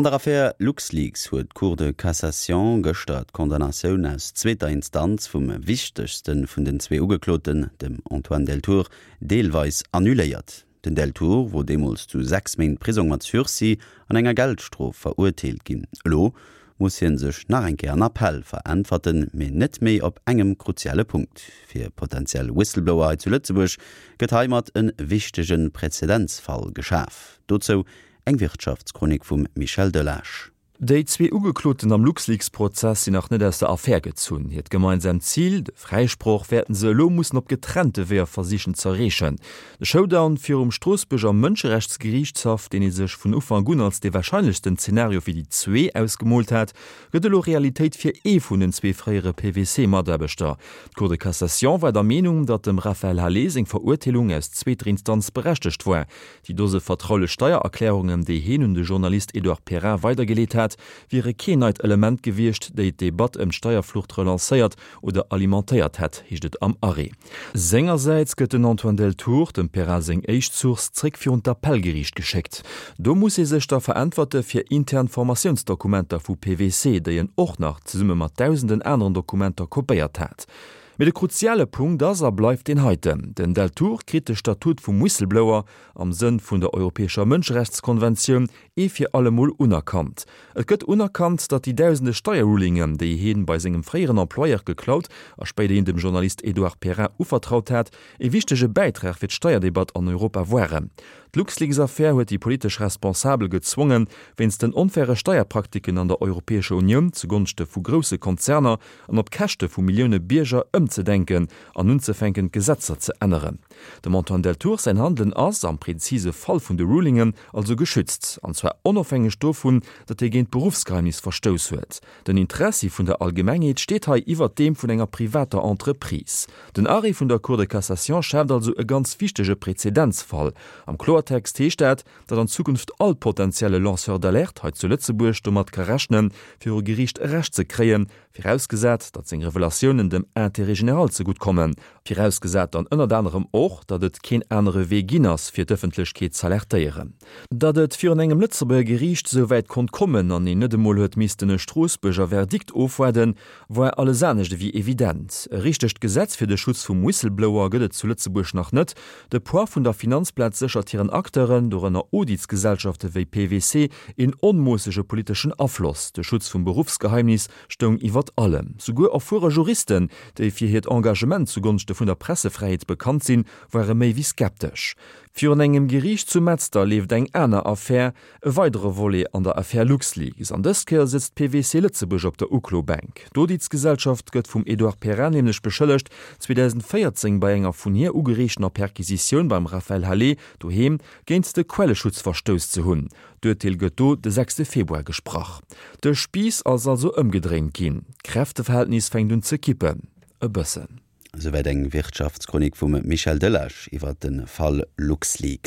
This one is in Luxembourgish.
An der Affär LuxLeaks huet d'Cour de Cassation gëschter d'Condamnatioun aus zweeter Instanz vum wichtegste vun den zwee Ugekloten, dem Antoine Deltour, deelweis annuléiert. Den Deltour wor deemools zu 6 Méint Prisong mat Sursis an enger Geldstrof verurteelt ginn. Elo muss hie sech nach eng Kéier an Appell veräntwerten, mee net méi op engem kruziale Punkt. Fir potentiell Whistleblower hei zu Lëtzebuerg gëtt heimat e wichtege Präzedenzfall geschaf. Dozou eng Wirtschaftschronik vum Michel Delage. Déi zwee Ugekloten am LuxLeaks-Prozess sinn nach net aus der Affär gezunn. Hiert gemeinsaamt Zil, de Fräisproch, wäerten se elo mussen op getrennte Weeër versichen z'erreechen. De Showdown virum Stroossbuerger Mënscherechtsgeriichtshaff, deen ee sech vun Ufank un als dee warscheinlechsten Zenario fir déi zwee ausgemoolt hat, gëtt elo Realitéit fir ee vun den zwee fréiere PwC-Mataarbechter. D'Cour de Cassation war der Meenung, datt dem Raphaël Halet seng Verurteelung aus zweeter Instanz berechtegt war. Déi Dose vertraulech Steiererklärungen, déi heen un de Journalist Edouard Perrin weidergeleet hat, wiere keen neit Element gewiescht, déi d'Debatt ëm d'Steierflucht relancéiert oder alimentéiert hätt, heescht et am Arrêt. Sengersäits gëtt den Antoine Deltour, dem Perrin seng éischt Source, zréck virun d'Appellgeriicht geschéckt. Do muss hie sech da veräntwerte fir intern Formatiounsdokumenter vu PwC, déi en och nach zesumme mat dausenden aneren Dokumenter kopéiert hat. Mee de kruziale Punkt ass a bleift deen heiten, Den Deltour kritt de Statut vum Whistleblower am Sënn vun der Europäescher Mënscherechtskonventioun ee fir allemol unerkannt. Et gëtt unerkannt, datt déi dausende Steierrulingen, déi hien bei sengem fréieren Employeur geklaut a spéiderhin dem Journalist Edouard Perrin uvertraut hat, e wichtege Bäitrag fir d'Steierdebatt an Europa waren. D'LuxLeaks-Affär huet déi politesch Responsabel gezwongen, wéinst den onfaire Steierpraktiken an der Europäescher Unioun zugonschte vu grousse Konzerner an op Käschte vu Millioune Bierger ëmzedenken an unzefänken d'Gesetzer ze änneren. Dem Antoine Deltour säin Handelen ass, am prezise Fall vun de Rulingen, also geschützt, an zwar onofhängeg dovun, datt hie géint d'Beruffsgeheimnis verstouss huet. Den Interessi vun der Allgemengheet steet hei iwwert deem vun enger privater Entreprise. Den Arrêt vun der Cour de Cassation schaaft also e ganz wichtege Prezedenzfall. Am Kloertext heescht dat, datt an Zukunft all potenzielle Lanceur d'alerte hei zu Lëtzebuerg domat ka rechnen, viru Geriicht Recht ze kréien, virausgesat, datt seng Revelatiounen dem Intérêt général zegutt kommen, virausgesat dann ënnert anerem och, datt et keen anere Wee ginn ass, fir d'Ëffentlechkeet z'alertéieren. Datt et virun engem Lëtzebuerger Geriicht esou wäit konnt kommen an een net emol huet missten e Stroossbuerger Verdikt ofwaarden, Woar alles anescht ewéi evident. E richtegt Gesetz fir de Schutz vum Whistleblower gëtt et zu Lëtzebuerg nach net. De Poids vun der Finanzplaz séchert hiren Acteuren, dorënner Auditsgesellschafte wéi PwC, een onmoossege politeschen Afloss. De Schutz vum Beruffsgeheimnis stoung iwwert allem. Souguer erfuere Juristen, déi fir hiert Engagement zugonschte vun der Pressefräiheet bekannt sinn, ware méi wéi skeptesch. Virun engem Geriicht zu Metzler leeft eng aner Affär, E weidere Volet an der Affär LuxLeaks, an dës Kéier sëtzt PwC Lëtzebuerg op der Uklobänk. D'Auditsgesellschaft gëtt vum Edouard Perrin nämlech beschëllegt, 2014 bei enger vun hir ugereechtener Perquisitioun beim Raphaël Halet doheem géint de Quelleschutz verstouss ze hunn. D'Urteel gëtt do de sechste Februar gesprach. De Spiiss ass also ëmgedréint ginn, d'Kräfteverhältnis fänkt un ze kippen. E bëssen. Esouwäit eng Wirtschaftschronik vum Michel Delage iwwer de Fall LuxLeaks.